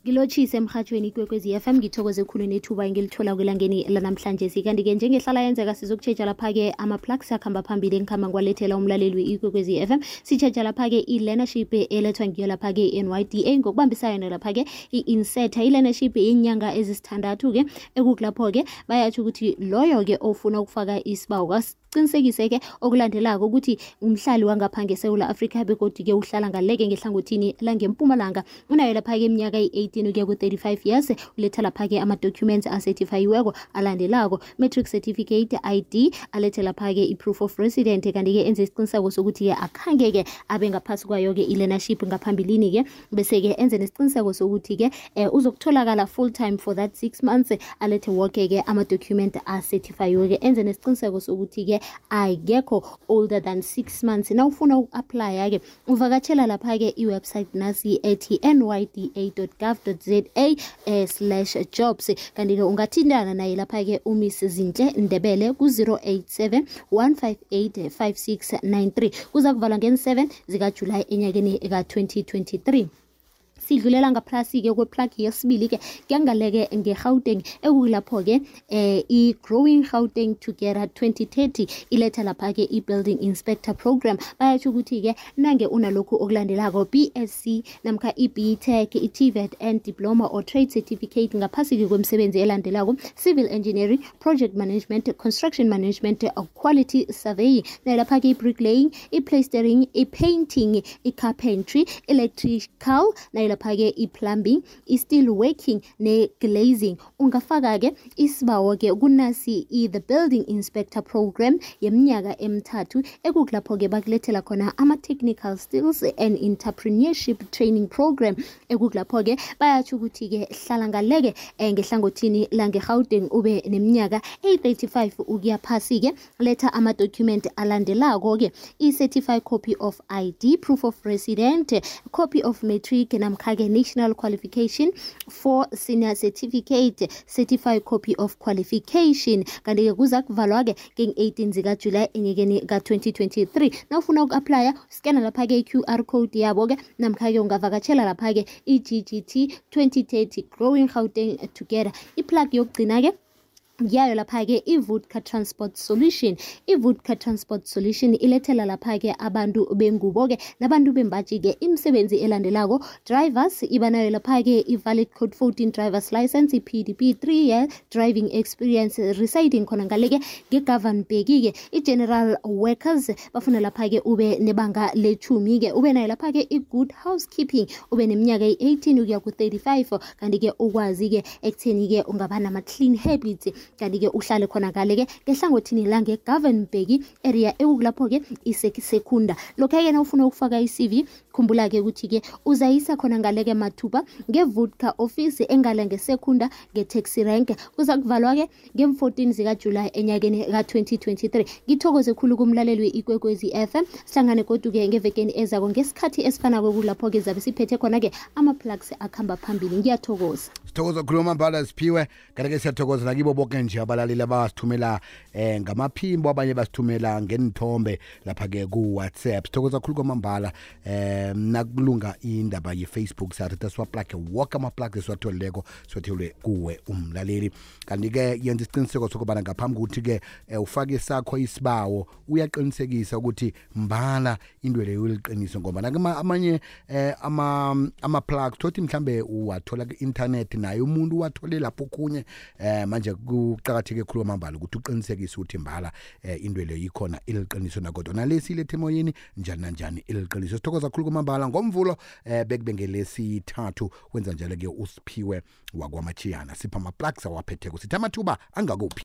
Ngilotshise emhathweni Kwekwezi FM ngithokoze khulu nethuba engilithola kwelangeni lanamhlanje kanti-ke njengehlala yenzeka sizokutshetsha lapha-ke ama-plugs akhamba phambili engikhamba ngwalethela umlaleli Ikwekwezi FM sitshetsha lapha-ke i-learnership elethwa ngiyo lapha-ke i-NYDA ngokubambisana lapha-ke i-inseta i-learnership yenyanga ezisithandathu-ke ekukulapho-ke bayatsho ukuthi loyo-ke ofuna ukufaka isibawo qinisekise-ke okulandelako ukuthi umhlali wangapha ngeSewula Afrika begodi-ke uhlala ngaleke ngehlangothini langempumalanga unayo lapha-ke iminyaka i-18 ukuya ku-35 years uletha lapha-ke ama-documents acertifayiweko alandelako matric certificate ID alethe lapha-ke i-proof of resident kanti-ke enze isiqiniseko sokuthi-ke akhange-ke abe ngaphasi kwayo-ke i-learnership ngaphambilini-ke bese-ke enze nesiqiniseko sokuthi-ke uzokutholakala full time for that 6 months alethe woke-ke ama-document acertifayiweke enze nesiqiniseko sokuthi-ke ayekho older than 6 months nawufuna uku-aplya-ke uvakatshela lapha-ke iwebsite nasi ethi nyda.gov.za/jobs kanti-ke ungathintana naye lapha-ke uMiss Zinhle Ndebele ku-087 158 5693 kuza kuvalwa nge-7 zikaJulayi enyakeni ka-2023. Sidlulela ngaphasi-ke kweplug yesibili-ke kuyangaleke nge-Gauteng ekulapho-ke i-Growing Gauteng Together 2030 iletha lapha-ke i-Building Inspector Program bayatsho ukuthi-ke nange unalokhu okulandelako BSc namkha i-BTech, i-TVET and Diploma or Trade Certificate ngaphasi-ke kwemisebenzi elandelako Civil Engineering, Project Management, Construction Management, Quality Surveying nalapha-ke i-bricklaying, i-plastering, i-painting, i-carpentry, electrical lapha-ke i-plumbing, i-steel working ne-glazing ungafaka-ke isibawo-ke kunasi the Building Inspector Program yeminyaka emithathu ekukulapho-ke bakulethela khona ama-technical skills and entrepreneurship training program ekukulapho-ke bayatsho ukuthi-ke hlala ngaleke ngehlangothini lange-Gauteng ube neminyaka 35 ukuya phasi-ke letha ama-document alandelako-ke i-certified copy of ID, proof of resident, copy of matric namkha-ke national qualification for senior certificate, certified copy of qualification kanti-ke kuza kuvalwa-ke nge-18 zikaJulayi enyakeni ka-2023 nawufuna uku-aplya scanner lapha-ke i-QR code yabo-ke namkha-ke ungavakatshela lapha-ke i-GGT 2030 Growing Gauteng Together. Iplug yokugcina-ke yayo lapha-ke i-Vodka Transport Solution. I-Vodka Transport Solution ilethela lapha-ke abantu bengubo-ke nabantu bembaji-ke imisebenzi elandelako drivers ibanayo lapha-ke i-valid code 14 drivers license, i-PDP 3 year driving experience residing khona ngaleke nge-Governbek-ke i-general workers bafuna lapha-ke ube nebanga le-10-ke ube nayo lapha-ke i-good housekeeping ube neminyaka i-18 ukuya ku-35 kanti-ke ukwazi-ke ekutheni-ke ungaba nama-clean habits kanti-ke uhlale khona ngale-ke ngehlangothini lange-Governbek area ekukulapho-ke isekunda lokho-ke na ufuna ukufaka i-CV khumbula-ke ukuthi-ke uzayisa khona ngale-ke mathuba nge-Vodka office engale ngesekunda nge-taxi rank kuza kuvalwa-ke nge-14 zikaJulayi enyakeni ka-2023. Ngithokoze khulu kumlaleli we-Ikwekwezi FM sihlangane godu-ke ngevekeni ezako ngesikhathi esifanako kulapho-ke zabe siphethe khona-ke ama-plugs akhamba phambili. Ngiyathokoza. Sithokoza khulu Mambala Siphiwe kanti-ke siyathokoza nakibo bonke nje abalaleli abasithumela ngamaphimbo abanye basithumela ngenithombe lapha-ke ku-WhatsApp. Sithokoza khulu kwamambala nakulunga indaba ye-Facebook sathi siwaplage woke ama-plugs esiwatholileko siwathelwe kuwe umlaleli kanti-ke yenza isiqiniseko sokubana ngaphambi kokuthi-ke ufake sakho isibawo uyaqinisekisa ukuthi mbala into leyo uliqiniso ngoba amanye ama-plugs thothi mhlambe uwathola ku-internet naye umuntu uwathole lapho okhunye manje kuqakatheke khulu kwamambala ukuthi uqinisekise ukuthi mbala into leyo ikhona iliqiniso nakodwa nalesi ilethe emoyeni njani nanjani iliqiniso. Sithokoza khulu kwamambala ngomvulo bekube ngelesithathu wenza njalo-ke uSiphiwe wakwamachiyana sipha ama-plugs awaphetheko sithi amathuba angakuphi.